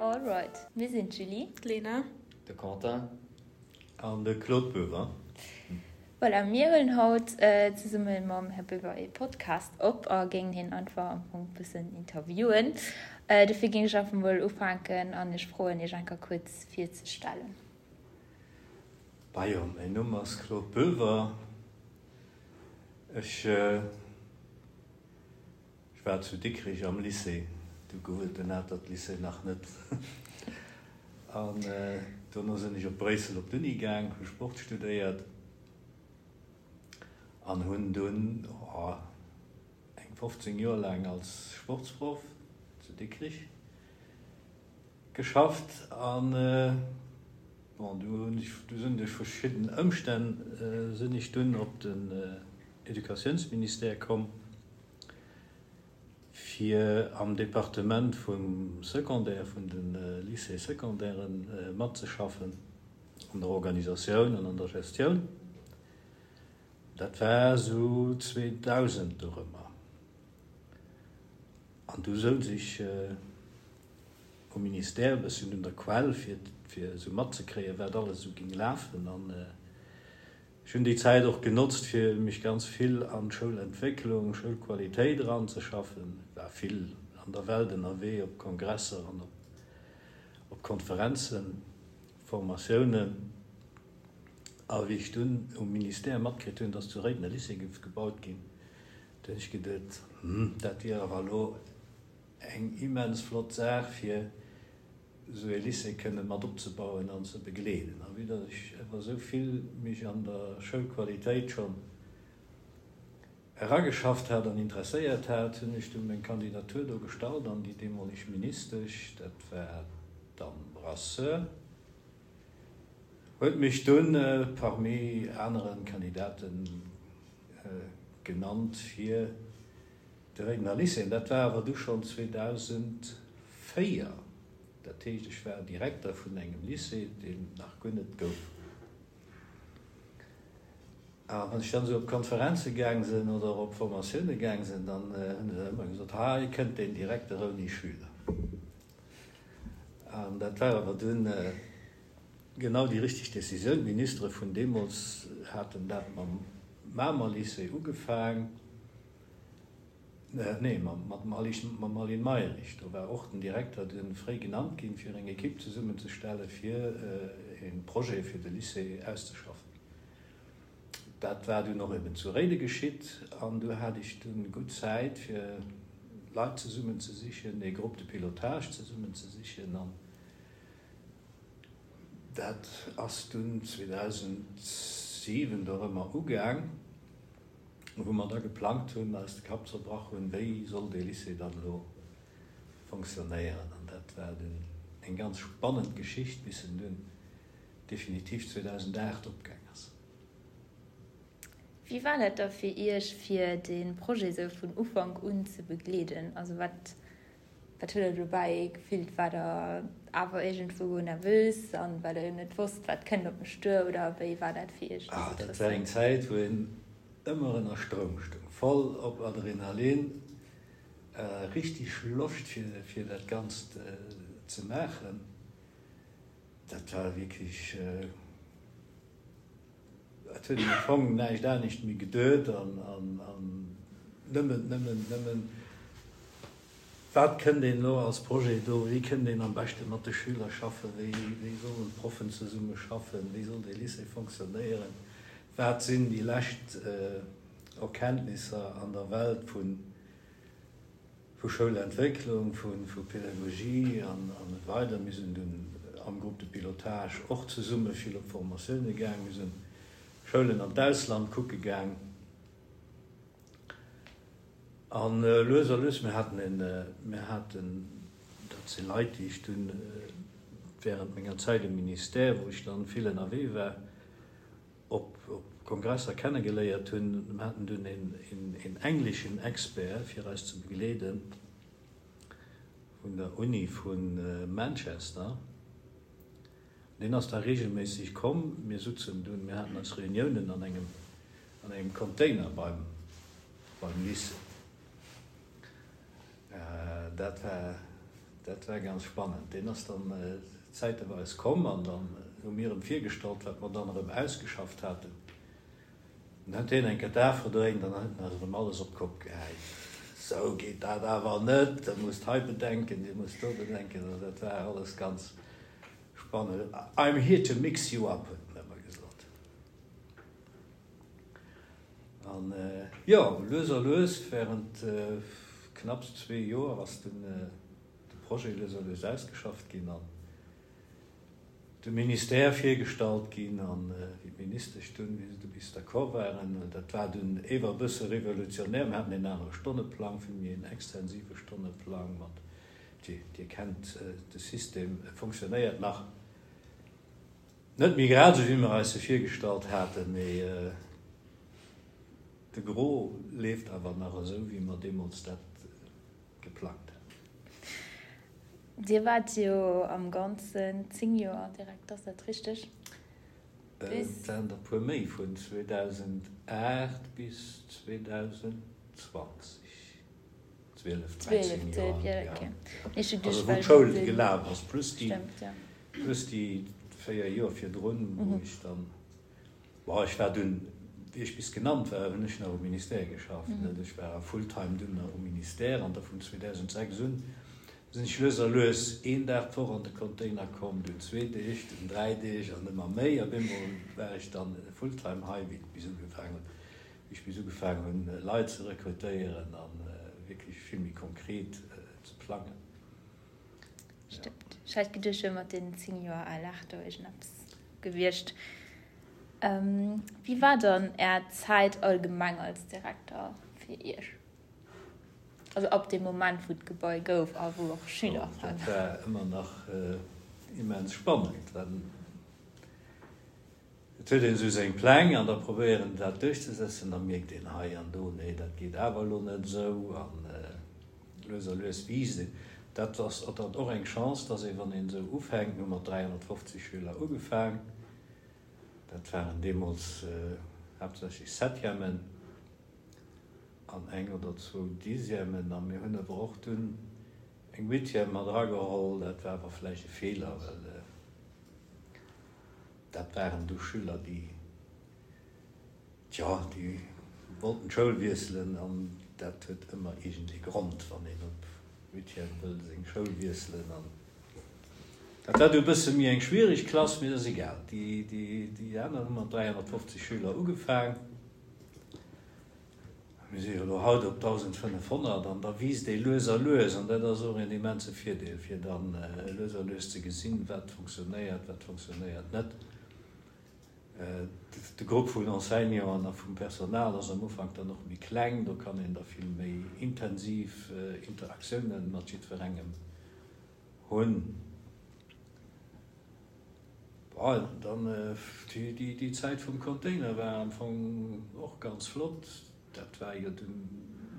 Alright, mir sinn d'Julie. D'Lena. De Quentin. An de Claude Boever. Voilà, mir huelen haut zesumme mam Här Boever ee Podcast op a géingen hien einfach am Fong e bëssen interviewen. Dofir géing ech einfach mol ufänken an iech froen, iech enker kuerz virzestellen. Majo, mäin Numm ass Claude Boever. Ech war zu Dikrich am Lycée, du gouf et den Atert-Lycée nach net. An dono sinn ech op Bréissel op d'Uni gaang, hu Sport studéiert an hunn dunn eng 15 Joer laang als Sportsproff zu Dikrich Geschafft an bon du hunn ech, du sinn duerch verschidden Ëmstänn sinn ech dunn op den Educatiounsministère komm fir am Departement vum Secondaire, vun de Lycées secondairen matzeschaffen an der Organisatioun an an der Gestioun. Dat war esou 2000 dorëmmer. An du souz ech um Ministère e bësschen un der Quell, fir fir esou matzekréien, wat alles esou géing lafen. An ech hunn déi Zäit och genotzt, fir mech ganz vill an d'Schoulentwécklung, Schoulqualitéit eranzeschaffen. War vill an der Welt ënnerwee, op Kongresser an op Konferenzen, Formatiounen. A wéi ech dunn um Ministère matkritt hunn, dass zu Réiden e Lycée géif gebaut ginn, Du hunn ech geduet, Hm, dat wier awer elo eng immens flott Saach, fir esou ee Lycée kënne mat opzebauen an ze begleeden. A vue datt ech awer esou vill mech an der Schoulqualitéit schonn erageschafft hat an interesséiert hat, hunn ech dunn meng Kandidatur do gestallt an déi deemoleg Ministesch, dat war d'Anne Brasseur, huet mech dunn parmi anere Kandidaten genannt fir de Réidener Lycée. An dat war awer du schonn 2004. Dat heescht, ech war Direkter vun engem Lycée, deen et nach guer net gouf. A wann ech dann esou op Konferenze gaang sinn oder op Formatioune gaang sinn, dann hunn se ëmmer gesot, Hei kënnt deen Direkter ouni Schüler. An dat war awer dunn genau déi richteg Decisioun. D'Ministere vun deemools haten dat mam Mamer Lycée ugefaang, nee, mat dem Aline Mayrisch. Do war och den Direkter dunn fréi genannt ginn, fir eng Ekipp zesummenzestellen, fir e Projet fir de Lycée auszeschaffen. Dat war dunn och eben zu Réide geschitt an du hat ech dunn gutt Zäit fir Leit zesummen ze sichen, ee Groupe de pilotage zesummen ze sichen an dat ass dunn 2007 dorëmmer ugaang, wou mer da geplangt hunn, eis de Kapp zerbrach hunn, wéi soll dee Lycée dann elo fonctionnéieren an dat war dunn eng ganz spannend Geschicht bis en dunn definitiv 2008 opgaang ass. Wéi war dat da fir Iech, fir de Projet esou vun Ufank un ze begleeden? Also wat wat hutt Der dobäi gefillt? Waart Der awer iergendwou nervös an well Der jo net wosst, wat kënnt op mech duer oder wéi war dat fir Iech déi Ah, dat war eng Situatioun? Zäit, wou een ëmmer ënner Stroum stoung, voll op Adrenalin, richteg Loscht fir fir dat Ganzt ze maachen. Dat war wierklech, et huet een am Fong näischt anescht méi geduet an nëmmen, nëmmen, nëmmen, wat kënnt een elo als Projet do, wéi kënnt een am beschte mat de Schüler schaffen, wéi, wéi sollen d'Proffen zesumme schaffen, wéi soll dee Lycée fonctionnéieren, wat sinn déi lescht Erkenntnisser an der Welt vun Vu Schoulentwécklung, vu Pedagogie an esou weider. Mir sinn dunn am Groupe de pilotage och zesumme vill op Formatioune gaang. Mir sinn Schoulen an d'Ausland kucke gaang. An lues a lues, mir haten en, mir haten, dat si Leit, déi ech dunn während menger Zäit um Ministère, wou ech dann vill ënnerwee war, op Kongresser kennegeléiert hunn. Mir haten dunn een engleschen Expert fir eis ze begleeden vun der Uni vu Manchester. Deen ass da regelméisseg komm. Mir sutzen dunn, mir haten eis Reuniounen an engem an engem Container beim beim Lycée. Dat war. Dat war ganz spannend. Deen ass dann zäiteweis komm an dann hu mir em virgestallt, wat mer dann erëm ausgeschafft haten. Dann huet hien eng Kéier d'A verdréint an dann huet en eis erëm alles op d'Kopp gehäit. Sou geet dat awer net, der musst hei bedenken, dir musst do bedenken. Also dat war alles ganz spannend. I'm here to mix you up, huet en ëmmer gesot. An jo, lues a lues, während knapps zwee Joer ass dunn de Projet lues a lues ausgeschafft ginn an dem Ministère virgestallt ginn. An wéi d'Ministesch dunn, wéi se du bis d'accord waren, dat war dunn ewer e bësse revolutionär, mir haten en anere Stonneplang, vill méi en extensive Stonneplang mat, Dir kennt de System, e fonctionnéiert nach. Net méi grad esou wéi mer eis se virgestallt haten, mee de Gros leeft awer nach esou wéi mer deemools dat geplangt haten. Dir waart jo am Ganzen 10 Joer Direkter, ass dat richteg? Et waren der e puer méi, vun 2008 bis 2020. 12, 13 Joer, jo. Also wou d'Schoul gelaf ass, plus déi, plus déi 4 Joer virdrun, wou ech dann, bon, ech war dunn, wéi ech bis genannt war, hunn ech nach um Ministère geschafft, net? Ech war full-time dunn nach um Ministère an da vun 2006 un sinn ech lues a lues een Dag d'Woch an de Container komm, dunn zwee Deeg, dunn dräi Deeg an ëmmer méi. Op eemol war ech dann full-time hei, wéi et bis ugefaangen huet. Wéi ech bis ugefaangen hunn, Leit ze rekrutéieren a wierklech vill méi konkret ze plangen. Stëmmt. Ech hat geduecht, wier mat deenen 10 Joer al lag do iergendeppes gewiescht. Wéi war dann Är Zäit allgemeng als Direkter fir Iech? Also ab deem Moment, wou d'Gebai gouf a wou och Schüler waren. Dat war ëmmer nach immens spannend. Et huet een esou seng Pläng an da probéiert een dat duerchzesetzen, da mierkt een hei an do, nee dat geet awer elo net esou an lues a lues wiisst een. Dat ass dann och eng Chance, dass ee wann een esou ufänkt, mir hu mat 350 Schüler ugefaang, dat waren deemools haaptsächlech Septièmen an eng oder zwou Dixièmen a mir hunn awer och dunn eng Huitième mat erageholl, dat war awer vläicht e Feeler, well Dat waren du Schüler, déi, tjo, déi wollten d'Schoul wiesselen an dat huet ëmmer iergend ee Grond, wann een op Huitième wëll seng Schoul wiesselen. An dat war du e bësse méi eng schwierig Klass, mee dat ass egal. Déi, déi, déi aner hu mat 350 Schüler ugefaang. Mir si jo elo haut op 1.500 an da wiisst ee lues a lues an dat ass och een immense Virdeel, fir da lues a lues ze gesinn, wat funktionéiert, wat funktionéiert net. De Grupp vun Enseignanten a vum Personal ass am Ufank dann och méi kleng, do kann een da vill méi intensiv Interaktiounen mat jiddwerengem hunn. Bon, dann déi Zäit vum Container war am Fong och ganz flott. Dat war jo dunn,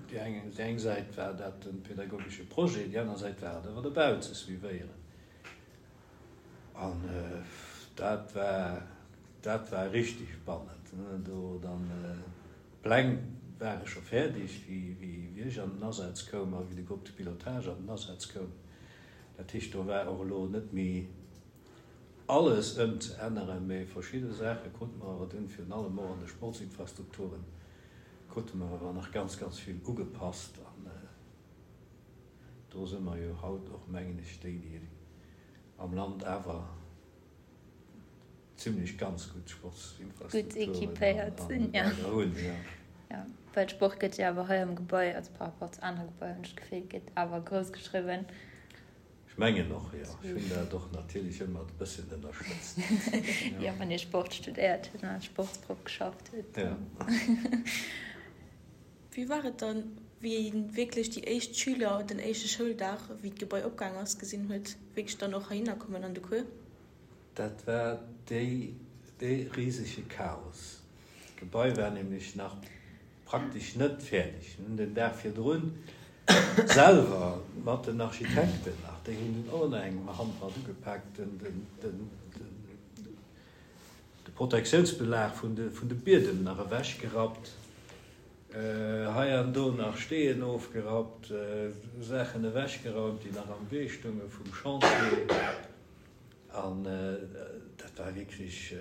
déi eng, déi eng Säit war dat de pädagogesche Projet, déi aner Säit war et awer de Bau ze suivéieren. An dat war, dat war richtig spannend. Do dann, d'Pläng ware scho fäerdeg, wéi, wéi ech an den Asaz koum a wéi de Groupe de pilotage an den Asaz koum. Dat heescht, do war och elo net méi alles ëmzeänneren, mee verschidde Saache krute mer awer dunn, virun allem och an de Sportsinfrastrukturen, krute mer awer nach ganz, ganz vill ugepasst. An do si mer jo haut och, mengen ech, déi, déi am Land awer zimlech ganz gutt Sportsinfrastrukturen hunn. Jo, well Sport gëtt jo awer hei am Gebai, also par rapport zu anere Gebaier, hunn ech d'Gefill, gëtt awer grouss geschriwwen. Ech mengen och, jo. Ech hunn dat och natierlech ëmmer e bësschen ënnerstëtzt. Jo, wann ee Sport studéiert huet an als Sportsproff geschafft huet. Jo. Wéi war et dann, wéi ee wierklech déi éischt Schüler den éischte Schouldag, wéi d'Gebai opgaang ass, gesinn huet, wierklech dann och heihinner kommen an de Cours? Dat war déi, dee risege Chaos. D'Gebai war nämlech nach praktesch net fäerdeg. Mir hunn den Dag virdrun selwer mat den Architekten nach, déi hunn dunn och nach eng Hand mat ugepaakt, den de Protektiounsbelag vun de vun de Biedem nach ewechgerappt. Hei an do nach Steen ofgerappt, Saachen ewechgeraumt, déi nach am Wee stounge vum Chantier. An dat war wierklech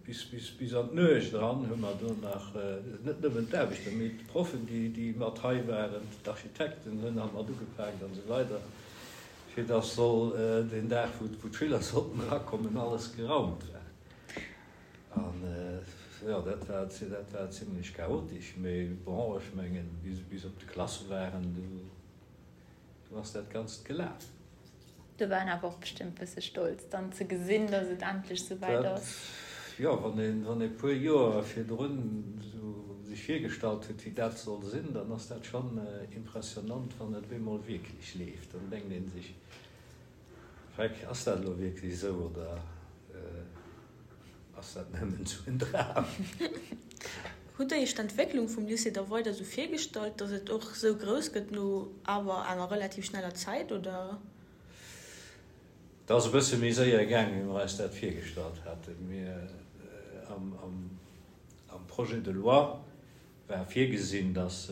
bis, bis, bis an d'Nuecht eran hu mer do nach, net nëmmen d'Aarbechter, mee d'Proffen, déi, déi mat hei waren, d'Architekten hunn nach mat ugepaakt an esou weider, fir dass soll deen Dag, wou, wou d'Schüler sollten erakommen, alles geraumt war. An jo, dat war, dat war zimlech chaotesch, mee bon, ech mengen, wéi se bis op de Klasse waren, du, du ass dat Ganzt gelaf. Do war en awer och bestëmmt bësse stolz, dann ze gesinn, dass et endlech souwäit ass. Jo, wann een, wann ee puer Joer virdrun esou sech virgestallt huet, wéi dat soll sinn, dann ass dat schonn impressionant, wann et op eemol wierklech leeft. Dann denkt ee sech, Freck, ass dat elo wierklech esou oder ass dat nëmmen esou en Dram? Hutt Der Iech d'Entwécklung vum Lycée da weider esou virgestallt, datt et och esou grouss gëtt no awer enger relativ schneller Zäit, oder? Et ass e bësse méi séier gaang, wéi mer eis dat virgestallt haten. Mir, am Projet de loi war virgesinn, datt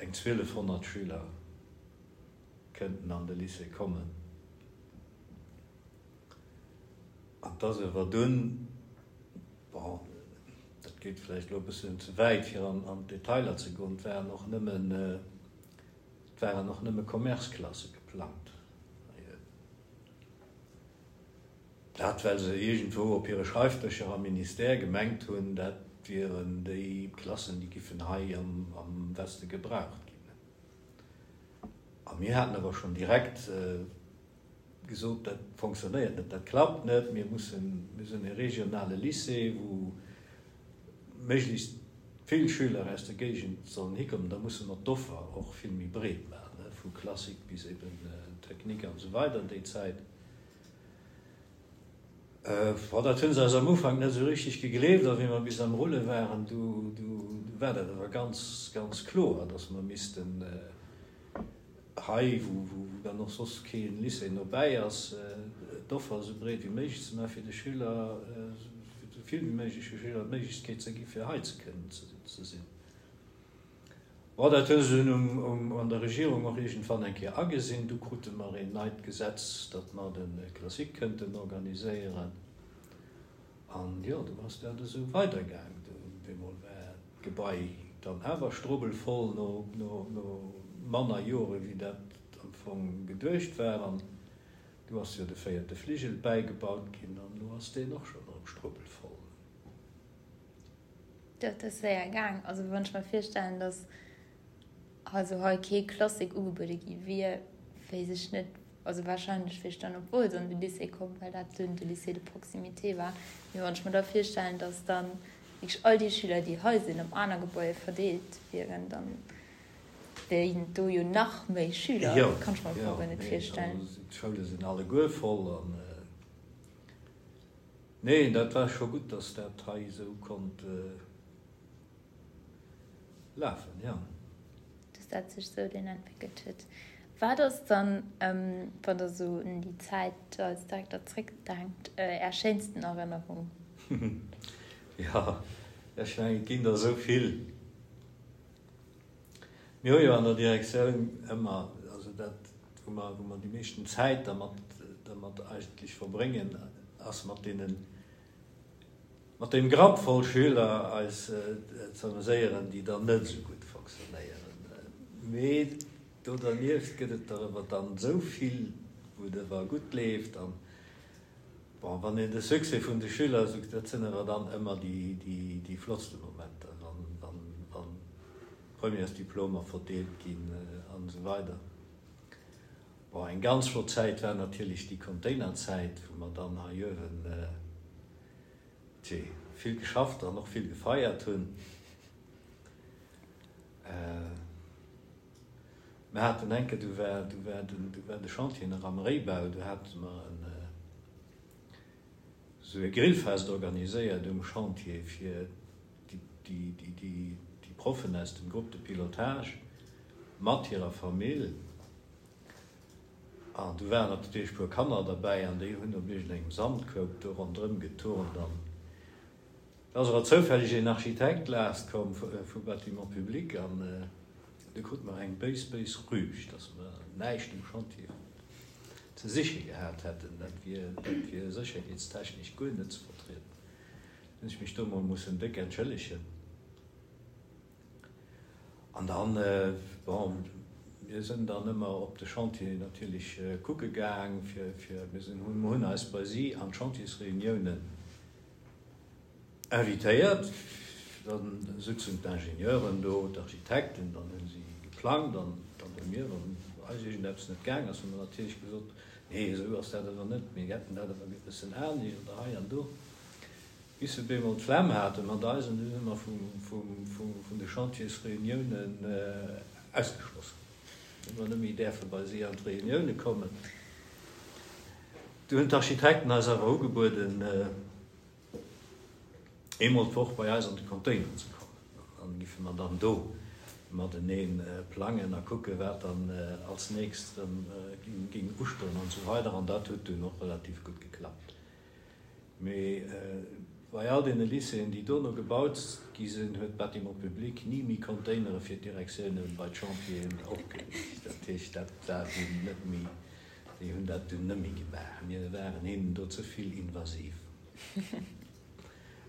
eng 1.200 Schüler kënnten an de Lycée kommen. An et ass awer dunn, bon, dat geet vläicht elo e bëssen ze wäit, fir an d'Detailer ze goen, et waren och nëmmen, et waren och nëmme Commerceklasse geplangt. Dat well se iergendwou op hire Schreifdëscher am Ministère gemengt hunn, dat wieren déi Klassen, déi giffen hei am Weste gebraucht ginn. A mir haten awer schonn direkt gesot, dat fonctionnéiert net, dat klappt net, mir mussen, mir sinn e regionale Lycée, wou méiglechst vill Schüler aus der Géigend sollen hikommen, da musse mer d'Offer och vill méi breet maachen, vu Classique bis eben Technique an esou weider déi Zäit. Bon, dat hunn se eis am Ufank net esou richteg gegleeft, a wéi mer bis am Rulle waren, du war dat awer ganz, ganz kloer, datt mer missten hei, wou dann och soss kee Lycée nobäi ass, d'Offer esou breet wéi méiglech ze maachen, fir de Schüler, esou vill wéi méigleche Schüler d'Méiglechkeet ze gi fir hei ze kënnen ze sinn. Bon, dat hu se dunn an der Regierung och iergendwann eng Kéier agesinn. Du krute mer een neit Gesetz, datt mer de Classique kënnten organiséieren. An jo, du ass dat esou weidergaang. Du op eemol war d'Gebai dann awer strubbelvoll no manner Jore wéi dat am Fong geduecht war. An du ass jo de véierte Fligel bäigebaut ginn an elo ass deen och schonn erëm strubbelvoll. Dat ass séier gaang. Also wann ech mer virstellen, datt also hei kee Classique ugebuede gi wier, wéisst ech net, also wahrscheinlech wier ech dann op Wolz an de Lycée komm, well dat dunn de Lycée de proximité war. Mee wann ech mer da virstellen, datt dann wierklech all déi Schüler, déi hei sinn, op aner Gebaier verdeelt wieren, dann wéilen do jo nach méi Schüler. Dat kann ech mer am Fong guer net virstellen. Jo, jo, d'Schoule sinn alleguer voll an. Neen, dat war scho gutt, dass dat hei esou konnt lafen, jo. Dass dat sech esou dunn entwéckelt huet. Wat ass dann, wann Der esou un déi Zäit als Direkter zréckdenkt, Är schéinsten Erënnerung? Jo, ech mengen, et ginn der esou vill. Mir hu jo an der Direktioun ëmmer, also dat, wou mer, wou mer déi meeschten Zäit dermat, dermat eigentlech verbréngen, ass mat deenen, mat deem Grapp voll Schüler eis ze ameséieren, déi dann net esou gutt fonctionnéieren. Mee do dernieft gëtt et der ewer dann esou vill, wou et ewer gutt leeft. An bon, wann een de Succès vun de Schüler esou, dat sinn ewer dann ëmmer déi, déi, déi flottste Momenter, wann, wann, wann Premièresdiplomer verdeelt ginn an esou weider. Bon, eng ganz flott Zäit war natierlech déi Containerzäit, wou mer dann hei uewen, tjee, vill geschafft an och vill gefeiert hunn. Mer haten eng Kéier, du war, du war den, du war de Chantier nach am Réibau, du hate mer en, esou e Grillfest organiséiert um Chantier fir déi Proffen aus dem Groupe de pilotage mat hirer Famill. An du waren natierlech e puer Kanner derbäi an déi hunn op iergendengem Sandkoup do ronderëm geturnt. An. Da ass awer zoufälleg een Architekt laascht komm vu Bâtiments publics an du krute mer eng béis, béis Rüg, dass mer näischt um Chantier ze siche gehat hätten. Dat wier, dat wier sécherheetstechnesch guer net ze vertrieden. Hunn ech mech do mol mussen déck entschëllegen. An dann, bon, mir sinn dann ëmmer op de Chantier natierlech kucke gaang, fir, fir, mir sinn, hunn eis bei si an d'Chantiersreuniounen invitéiert. Dann sutzen d'Ingenieuren do, d'Architekten, dann hu si geplangt an dann hu mir, wann eis iergendeppes net gaang ass, hu mer natierlech gesot, nee, esou ass dat awer net, mir hätten dat awer e bëssen anescht oder hei an do. Bis se bemol d'Flemm hate mat eis an du si mer vun de Chantiersreuniounen ausgeschloss ginn. Hu mer net méi däerfe bei si an d'Reunioune kommen. Du hunn d'Architekten eis awer ugebueden, eemol d'Woch bei eis an de Container ze kommen. An dann giffe mer dann do matenee plangen a kucke wat dann als nächst erëm géing ustoen an esou weider. An dat huet dunn och relativ gutt geklappt. Mee bei all deene Lycéeën, déi dono gebaut gi sinn, huet d'Bâtiments publics ni méi Containere fir d'Direktioune bei d'Chantieren opgeriicht. Dat heescht, dat war dunn net méi, déi hunn dat dunn net méi gemaach. Mir waren hinnen do ze vill invasiv.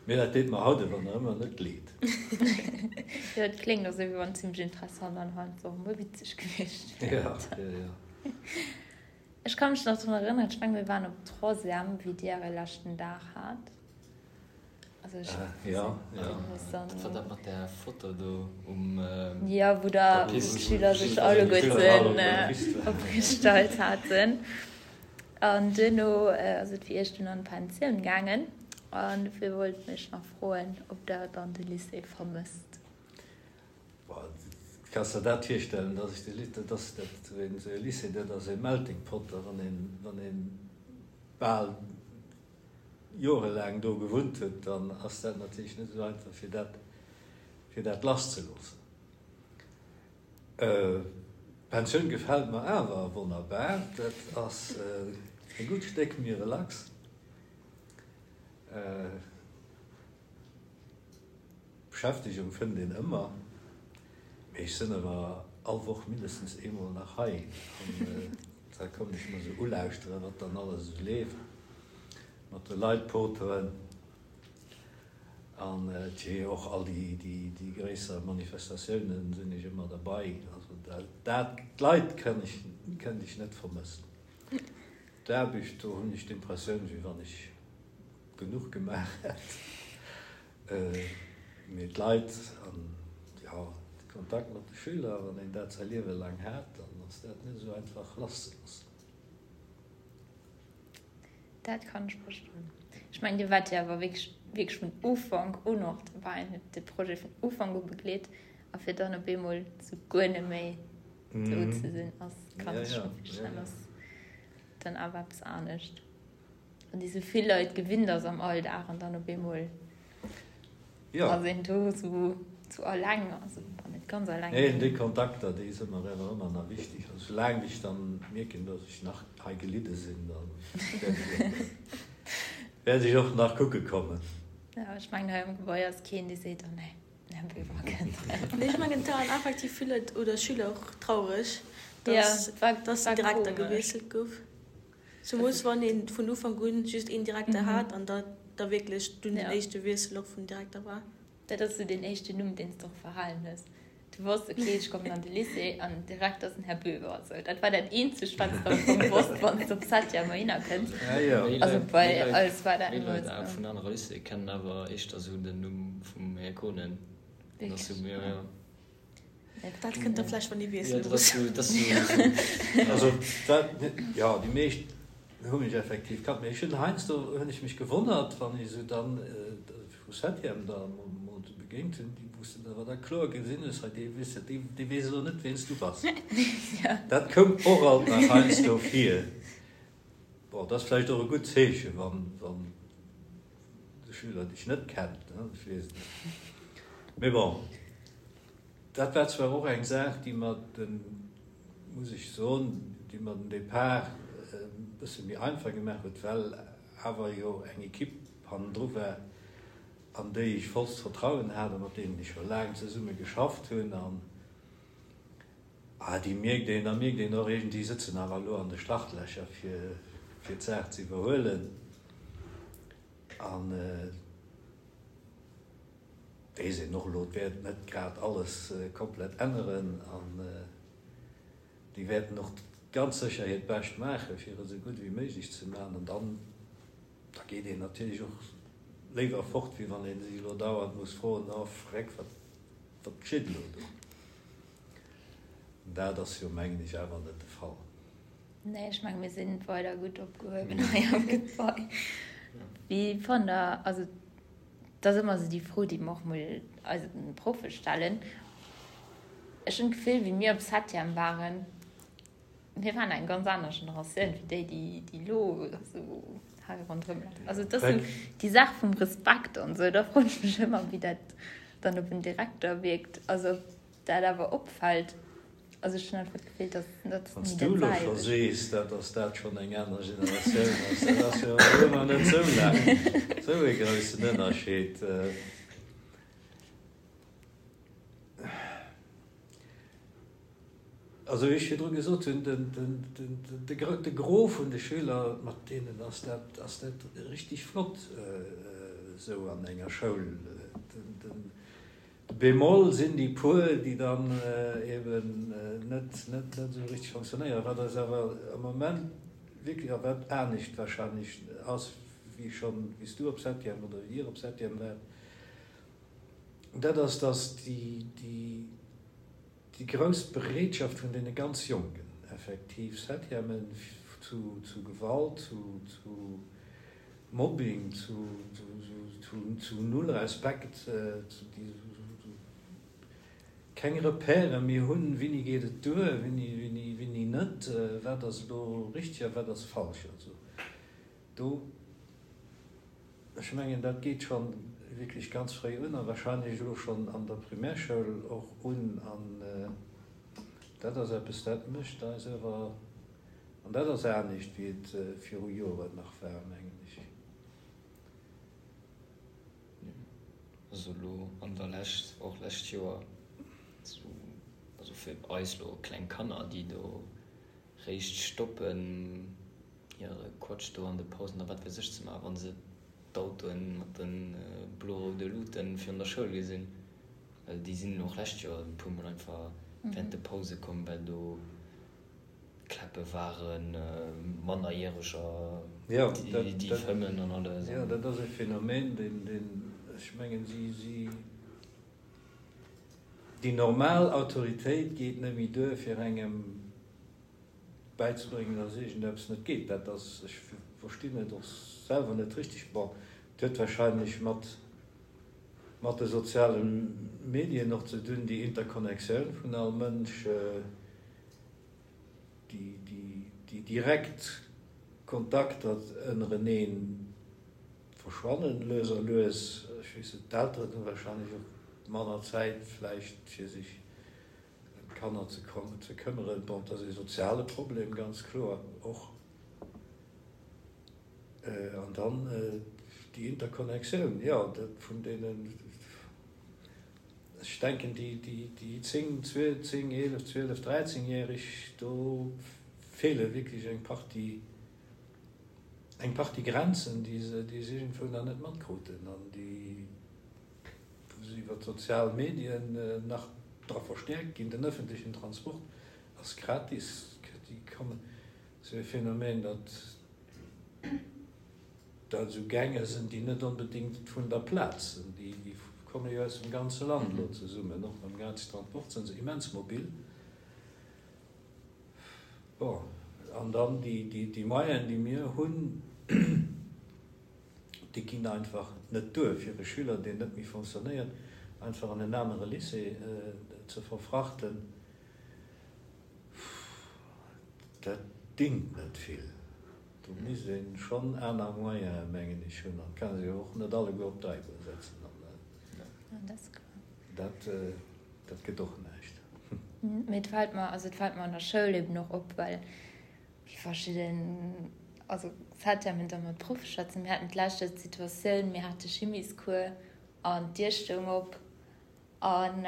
Mee dat deet mer haut awer nach ëmmer net leed. Jo, et kléngt och esou, wéi wann et zimmlech interessant an heiansdo och emol witzeg gewiescht wär. Jo, jo, jo. Ech ka mech nach drun erënneren, ech mengen mir waren op Troisième wéi dir äre leschten Dag hat. Also ech ja, ja. Dat war dat mat där Foto do um Ja, wou der d'Schüler sech alleguerten opgestallt haten. An duerno ass et fir iech dunn an d'Pensioun gaangen. An dofir wollt ech nach froen, ob der dann de Lycée vermësst. Kanns der dat virstellen, dass ech de Lycée, dat ass dat, esou e Lycée, dat ass e Melting Pot, a wann een, wann een bal jorelaang do gewunnt huet, dann ass dat natierlech net esou einfach fir dat, fir dat lasszeloossen. D'Pensioun gefält mer awer wonnerbar, dat ass e gutt Stéck méi relax. Beschäftegung fënnt een ëmmer, mee ech sënn awer all Woch mindestens eemol nach hei an da kommen ech mer sou ulauschteren, wat dann alles esou leeft, mat de Leit poteren an tjee och all déi gréisser Manifestatiounen sinn ech ëmmer derbei. Also dat, d'Leit kënnt ech, kënnt ech net vermëssen. D'Aarbecht, do hunn ech d'Impressioun, wéi wann ech genuch gemaach hätt. Mee d'Leit an, jo, de Kontakt mat de Schüler, wann een dat säi Liewe laang hat, dann ass dat net esou einfach lasszeloossen. Dat kann ech verstoen. Ech mengen, Dir waart jo awer wierklech, wierklech vun Ufank un och dobäi an hutt de Projet vun Ufank u begleet. A fir dann op eemol sou guer net méi do ze sinn, ass, kann ech scho virstellen, ass dann awer eppes anescht. Wann ee sou vill Leit gewinnt ass am Alldag an dann op eemol ass een do sou sou alleng, also bon net ganz alleng. Nee, déi Kontakter, déi si mer awer ëmmer nach wichteg. Also soulaang ech dann mierken, dass ech nach hei gelidde sinn, da wäert ech och nach kucke kommen. Jo, ech mengen hei am Gebai ass keen, dee seet, oh nee, den Här Böver kënnt. Nee, ech mengen et waren effektiv vill Leit oder Schüler och traureg, dass dass den Direkter gewiesselt gouf. Zemoos wann een vun Ufank un just een Direkter hat an dat da wierklech dunn den éischte Wiessel och vum Direkter war. Dat ass sou deen éischten Numm, deen s de och verhalen hues. Du wosst, ok, ech kommen an de Lycée an den Direkter ass den Här Böver. Sou, dat war dat eenzegt, wat s de am Fong wosst, wann s de op Septième heihinner kënns. Also bei eis war dat Méi ëmmer Leit sou. vun anere Lycéeë kennen awer éischter sou den Numm vum Här Kohnen. Wierklech? Jo, jo. Dat kënnt da vläicht, wann ee wiessele muss. Also dat, jo, déi meescht hu mech effektiv kannt. Mee ech hunn heiansdo hunn ech mech gewonnert, wann ech esou dann vu Septième da mol esou begéint hunn, déi wou s de awer da kloer gesinn hues, hei dee weess, dee weess elo net, wien s du bass. Dat koum och alt nach heiansdo vir. Bon, dat ass vläicht och e gutt Zeechen, wann de Schüler dech net kennt, ech weess et net. Mee bon, dat war zwar och eng Saach, déi mer den, muss ech soen, déi mer den Depart e bësse méi einfach gemaach huet, well awer jo eng Equipe hannendru war. an déi ech vollst Vertrauen hat a mat deenen ech scho laang zesumme geschafft hunn. An déi mierkt een, da mierkt een och iergend, déi sëtzen awer elo an de Startlächer fir fir d'Saach ze iwwerhuelen. An weess een och elo, et wäert net grad alles komplett änneren an déi wäerten och ganz sécher hiert Bescht maachen, fir et esou gutt ewéi méiglech ze maachen. An dann, da geet een natierlech och léiwer fort, wéi wann ee sech elo dauernd muss froen, Oh Freck, wat, wat geschitt elo do? Dat ass jo, mengen ech, awer net de Fall. Nee, ech menge mir sinn weider gutt opgehuewen hei am Gebai. Wéi fannt Der, also et ass ëmmer esou déi Fro, déi mer och mol eise Proffe stellen, ech hunn d'Gefill, wéi mir op Septième waren, mir waren eng ganz aner Generatioun wéi déi, déi déi elo esou hei ronderëm lafen. Also et ass esou déi Saach vum Respekt an esou, da froen ech mech ëmmer, wéi dat dann op en Direkter wierkt. Also ob dat awer opfält. Also ech hunn einfach d'Gefill, dass dat Wann s du elo scho sees, dat dass dat schonn eng aner Generatioun ass, dat ass jo elo nach net esou laang esou ee groussen Ënnerscheed. Also wéi ech virdru gesot hunn, de Gros vun de Schüler, mat deenen ass dat ass dat richtig flott esou an enger Schoul. De Bémol sinn déi puer, déi dann eben net net esou richtig fonctionnéieren, wat eis awer am Moment wierklech, a wat anescht wahrscheinlech ass wéi schonn, wéi s du op Septième oder wéi Dir op Septième waart, dat ass, dass déi déi Déi grouss Bereetschaft vun deene ganz Jonken, effektiv Septièmen zu zu Gewalt, zu zu Mobbing, zu zu null Respekt, zu déi keng Repèrë méi hunn, wéini geet et duer, wéini wéini wéini net, wat ass elo richteg a wat ass falsch. Also do. Ech mengen, dat geet scho wierklech ganz fréi un a wahrscheinlech elo schonn an der Primärschoul och un. An dat ass eppes, dat mécht eis awer, an dat ass anescht, wéi et viru Joren nach war, mengen ech. Also elo an der Lescht, och lescht Joer, also fir eis elo kleng Kanner, déi do réischt stoppen, hire Quatsch do an de Pausen a wat weess ech ze maachen, wa se d'Autoen mat de blo-roude Luuten virun der Schoul gesinn. Well déi sinn och lescht Joer e puer Mol einfach während de Pause komm, well do Kläppe waren, Mannerjäreger, déi fëmmen an alles. Jo, dat ass e Phänomen, deen, ech mengen, si, si, déi normal Autoritéit geet net méi duer, fir engem bäizebréngen, dass iergendeppes net geet. Dat ass, ech verstinn et och selwer net richteg. Bon, et huet wahrscheinlech mat, mat de soziale Medien och ze dun, déi Interconnectioun vun all Mënsch, déi, déi, déi direkt Kontakter ënnereneen verschwannen lues a lues. Ech weess net, d'Elteren hu wahrscheinlech och manner Zäit vläicht fir sech Ëm d'Kanner ze ze këmmeren. Bon, et ass ee soziale Problem, ganz kloer och. An dann déi Interconnectioun, jo, dat vun deenen, ech denken, déi, déi, déi 10, 10, 11, 12, 13-Jähreg, do feele wierklech eng Partie, eng Partie Grenzen, déi se, déi se iergendwou nach net matkruten an déi, wou se iwwer d'sozial Medien nach dra verstäerkt ginn. Den ëffentlechen Transport ass gratis, déi kommen, esou e Phänomen, datt dat esou Gänge sinn, déi net onbedéngt vun der Plaz sinn, déi komme jo aus dem ganze Land elo zesummen, och mam gratis Transport sinn se immens mobil. Bon, an dann déi Moyenen, déi mir hunn, Déi ginn einfach net duer, fir e Schüler, deen net méi fonctionnéiert, einfach an en anere Lycée ze verfrachten. Dat dingt net vill. Do misst ee schonn aner Moyene, mengen ech, hunn. An et kann ee se jo och net alleguer op d'Eibunn setzen. Dat, dat gëtt och näischt. Mee et fält mer, also et fält mer an der Schoul eben och op, well Wéi verschidden, also Septièmen da mat Proffe schwätzen. Mir haten d'lescht Joer d'Situatioun, mir hate Chimiescours. An d'Dier stoung op an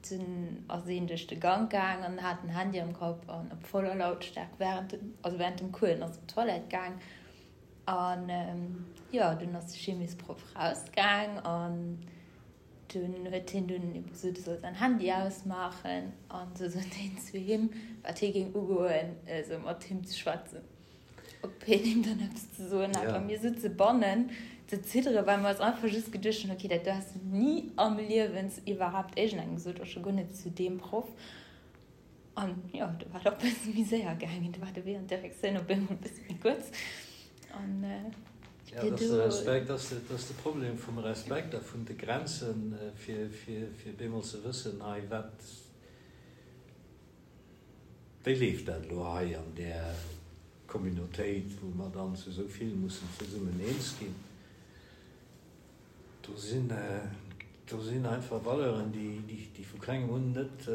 dunn ass een duerch de Gank gaang an hat den Handy am Kapp an op voller Lautstaark während dem, also während dem Cours ass op d'Toilette gaang. An jo, dunn ass de Chimiesproff rausgaang an dunn huet hien dunn ebe gesot, e soll säin Handy ausmaachen. An du sot hien zu him, wat hie géing ugoen, esou mat him ze schwätzen. Ob hien him dann eppes ze soen hat. A mir sutze bannen ze zidderen, well mer eis einfach just geduecht hunn, okay, dat do häss du ni am Liewen zu iwwerhaapt iergendengem gesot, och scho guer net zu deem Proff. An jo, do war et och e bësse méi séier gaangen. Do war de Wee an d'Direktioun op eemol e bësse méi kuerz. An Ja, dat ass de Respekt, dat ass de Problem vum Respekt a vun de Grenzen, fir, fir, fir bemol ze wëssen, hei, wat, Wéi leeft dat elo hei an där Communautéit, wou mer dann zu esou vill mussen zesummen eens ginn? Do sinn, do sinn einfach Valeuren, déi, déi vu klengem un net,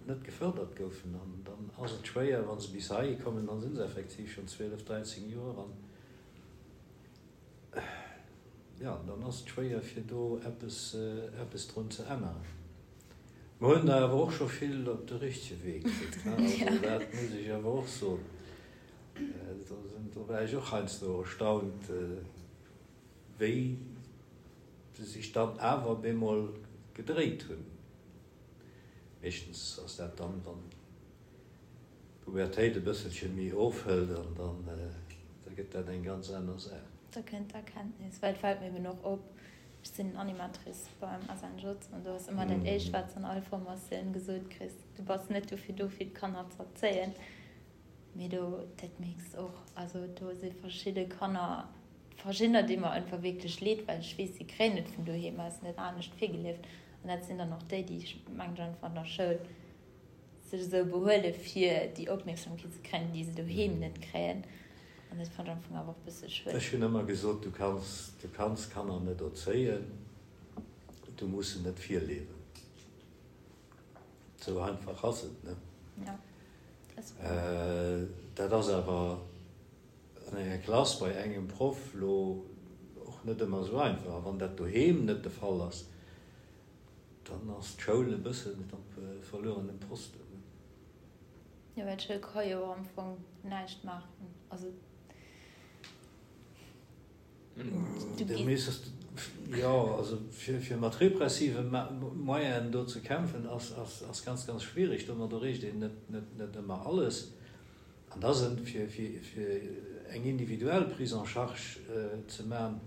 net gefördert goufen. An dann ass et schwéier, wa se bis heihi kommen, da si se effektiv schonn 12, 13 Joer an, jo, dann ass et schwéier, fir do eppes, eppes drun ze änneren. Mer hunn der awer och scho vill op de richtege Wee kritt, ne? Also dat muss ech awer och soen. Do sinn, do war ech och heiansdo erstaunt, wéi se sech dann awer bemol gedréit hunn. Meeschtens ass dat dann, wann d'Pubertéit e bësselche méi ofhëlt an dann, da gëtt dat eng ganz aner Saach. Da kënnt d'Erkenntnis, well et fält mir eben och op, Ech sinn Animatrice beim SNJ an do ass ëmmer dat éischt wat s an all Formatioun gesot kriss, du bass net dofir do fir d'Kanner ze erzéien, mee do dat mierks de och, also do si verschidde Kanner, verschiddener déi mer einfach wierklech leed, well ech weess si kréien et vun doheem aus net anescht virgelieft an dat sinn dann och déi, déi ech mengen einfach an der Schoul sech esou behuele fir déi Opmierksamkeet ze kréien, déi se doheem net kréien. An dat fannt ech am Fong awer och e bësse schued. Ech hunn ëmmer gesot, du kanns, du kanns Kanner net erzéien, du muss se net virliewen. Esou einfach ass et, ne? Ja, dat ass wouer. Dat ass awer an enger Klass bei engem Proff lo och net ëmmer esou einfach. A wann dat doheem net de Fall ass, Dann ass d'Schoul e bëssen op verluerenem Posten. Jo, well d'Schoul ka jo am Fong näischt maachen. Also du gees. Jo, also fir mat repressive Moyenen do ze kämpfen, ass ganz, ganz schwierig. Domat erreecht een net ëmmer alles. An da sinn, fir eng individuell Prise en charge ze man,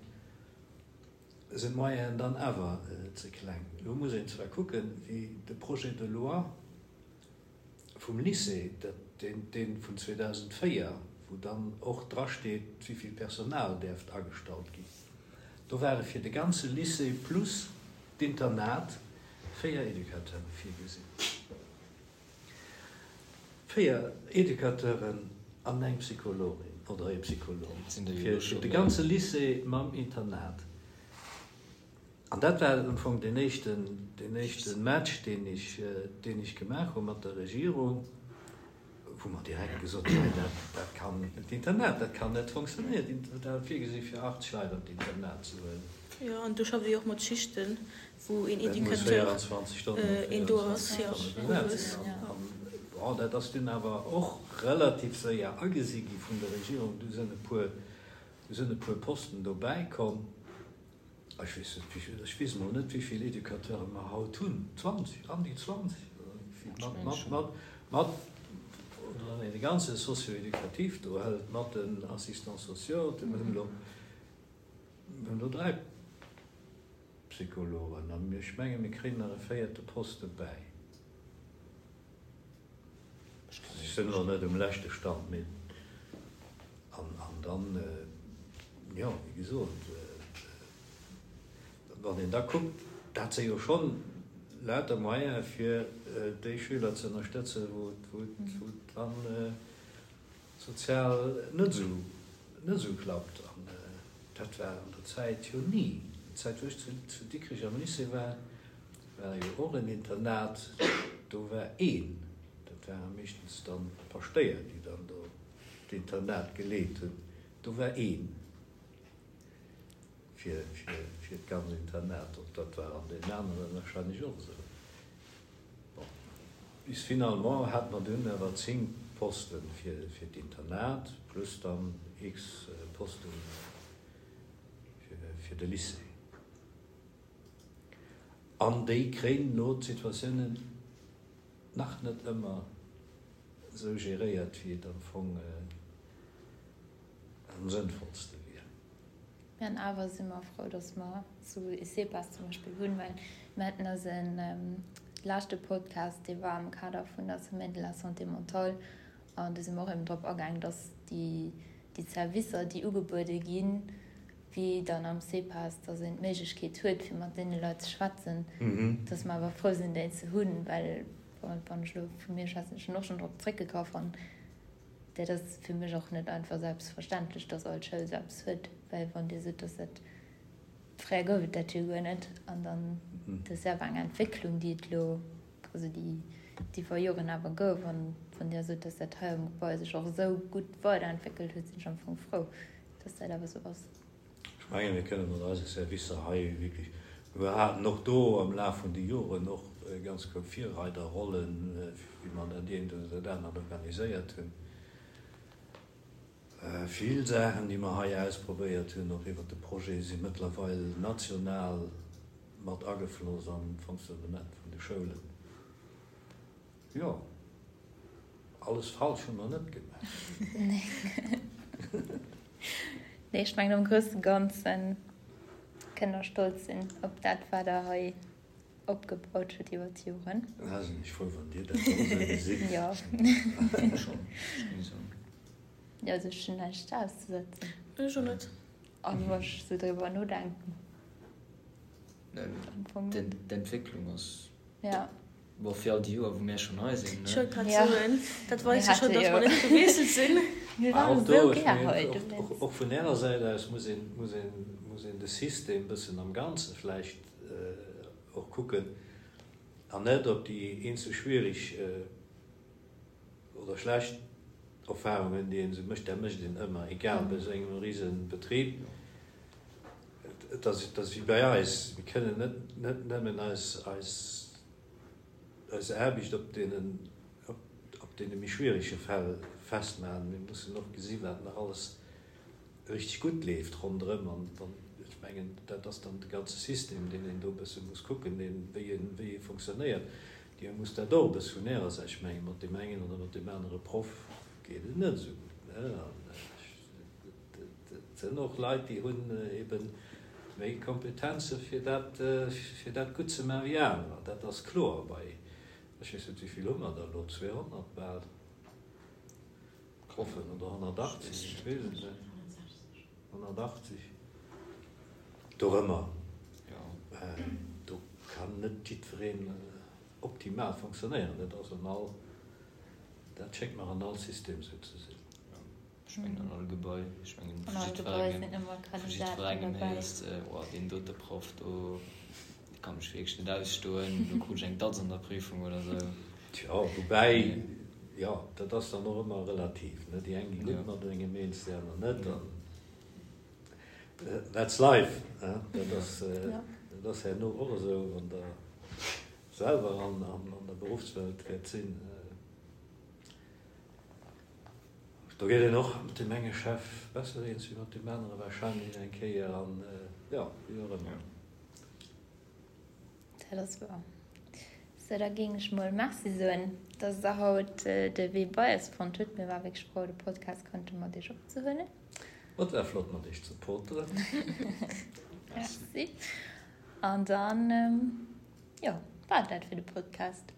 sinn d'Moyenen dann awer ze kleng. Elo muss een zwar kucken, wéi de Projet de loi vum Lycée, dee vun 2004, wou dann och drasteet, wéivill Personal däerft agestallt ginn, do ware fir de ganze Lycée plus d'Internat 4 Educateure virgesinn. 4 Educateuren an eng Psychologin oder ee Psycholog fir de ganze Lycée mam Internat. An dat war am Fong deen éischten, deen éischte Match, deen ech, deen ech gemaach hu mat der Regierung, wou mer direkt gesot hunn, nee, dat, dat kann, d'Internat, dat kann net funktionéieren. Dat war virgesi fir 80 Leit an d'Internat ze huelen. Jo, an do schafft Dir jo och mat Schichten. Wou een Educateur een do ass, jo, owes. Bon, dat ass dunn awer och relativ séier agesi gi vun der Regierung. Du sinn e puer, du sinn e puer Posten dobäi komm. Ech weess net, wéi vill, ech weess emol net, wéi vill Educateure mer haut hunn. 20, an déi 20 oder wéi vill? Mat, mat, mat, mat, oder wann een de ganze Socio-éducatif do hëlt, mat den Assistants sociaux, mir hunn elo, mir hunn elo 3. Psychologen, an ech menge mir kréien nach e véierte Poste bäi. Ech sinn elo net um leschte Stand, mee an dann, jo, wéi gesot, wann een da kuckt, dat si jo schonn lauter Moyene fir déi Schüler ze ënnerstëtzen, wou et dann sozial net esou, net esou klappt. An dat war an der Zäit jo ni. Déi Zäit, wou ech zu, zu Dikrech am Lycée war, war jo och en Internat, do war een, dat ware meeschtens dann d'Paschtéier, déi dann do d'Internat geleet hunn, do war een. fir d'ganz Internat. Och dat war an deenen aneren wahrscheinlech och esou. Bon, bis finalement hate mer dunn awer 10 Poste fir d'Internat plus dann x Poste fir de Lycée. An déi kréien elo d'Situatiounen nach net ëmmer esou geréiert, wéi et am Fong am sënnvollste wier. An awer si mer frou, dass mer esou e CEPAS zum Beispill hunn, well mir haten eise leschte Podcast, dee war am Kader vun der Semaine de la santé mentale, an do si mer och eben drop agaang, dass déi Servicer, déi ugebuede ginn, wéi dann am CEPAS, dass een d'Méiglechkeet huet, fir mat deene Leit ze schwätzen, dass mer awer frou sinn, déi ze hunn, well, wann ech elo vu mir schwätzen, ech hunn och schonn drop zréckgegraff an dat ass fir mech och net einfach selbstverständlech, dass all Schoul esou eppes huet, well wann Dir sot, dass dat, fréier gouf et dat jo guer net an dann, dat ass jo awer eng Entwécklung, déi et elo, also déi iwwer Joren awer gouf an wann Dir sot, dass dat hei am Gebai sech och esou gutt weiderentwéckelt huet, sinn ech am Fong frou, dass dat awer esou ass. Ech mengen, mir kënne mat eise Servicer hei wierklech, mir haten och do am Laf vun de Joren och ganz kloer Virreiderrollen, wéi mer dat eent oder dat anert organiséiert hunn. Vill Saachen, déi mer hei ausprobéiert hunn, och iwwert de Projet, si mëttlerweil national mat agefloss an d'Fonctionnement vun de Schoulen. Jo, alles falsch hu mer net gemaach. Nee, ech mengen am grousse Ganze kënnt der stolz sinn op dat, wat der hei opgebaut hutt iwwer d'Joren. Da sinn ech frou, wann Dir dat och esou gesitt. Jo. Schonn, ech géing soen. Jo, also ech hunn näischt auszesetzen. Ech och net. An wa ech esou driwwer nodenken. Am Fong net. D'Entwécklung ass. Ja. Bon, fir all déi Joer, wou mär schonn hei sinn, ne? Ech wollt grad soen, dat weist jo schonn, datt mer net gewiesselt sinn. Mir waren Och do, esou ech gär mengen, hei, och, dowéinst. och vun Ärer Säit aus muss een, muss een, muss een de System e bëssen am Ganze vläicht och kucken an net op déi eenzel schwierig oder schlecht Erfahrungen, déi een esou mécht. Dat mécht een ëmmer, egal bei esou engem Risebetrib. Et ass, et ass wéi bei eis, mir kënnen net, net nëmmen eis, eis, eis Aarbecht op deenen, op deene méi schwierege Fäll festmaachen. Mir mussen och gesi wat nach alles richteg gutt leeft ronderëm. An dann, ech mengen, dat ass dann de ganze System, deen een do e bësse muss kucken, deen, wéi e, wéi e fonctionnéiert. Dir musst dat och e bësse vun Ärer Säit, ech menge mat deem engen oder mat deem anere Proff geet et net esou gutt, ne? An ech. Et sinn och Leit, déi hunn ebe méi Kompetenze fir dat, fir dat gutt ze maachen wéi anerer. Dat ass kloer. Bei, ech weess net, wéi vill hu mer der elo, 200 bal Proffen oder 180, ech weess et net, 180, dorëmmer. Do kann net jiddwereen optimal fonctionnéieren. Dat ass an all, dat schéngt mer an all System esou ze sinn. Ech mengen an all Gebai, ech mengen vu jiddwerengem, vu jiddwerengem héiers de, oh deen dote Proff do, dee kann mech wierklech net ausstoen, do krut ech eng Datz an der Prüfung oder sou. Tjo, woubäi, jo, dat ass dann och ëmmer relativ, ne, déi eng gi gutt mat engem eens, déi aner net, an that's life, ne, dat ass, dat ass herno och esou, wann der selwer an der Beruffswelt wäert sinn. Do geet een och mat deem enge Chef besser eens wéi mat deem anere wahrscheinlech eng Kéier an jo, wéi och ëmmer. Dat ass wouer. Sou, da géing ech mol Merci soen, dass Der haut de Wee bei eis fonnt hutt. Mir ware wierklech frou, de Podcast konnte mat Iech opzehuelen. Et war flott mat Iech ze poteren. Merci. An dann, jo, war et dat fir de Podcast.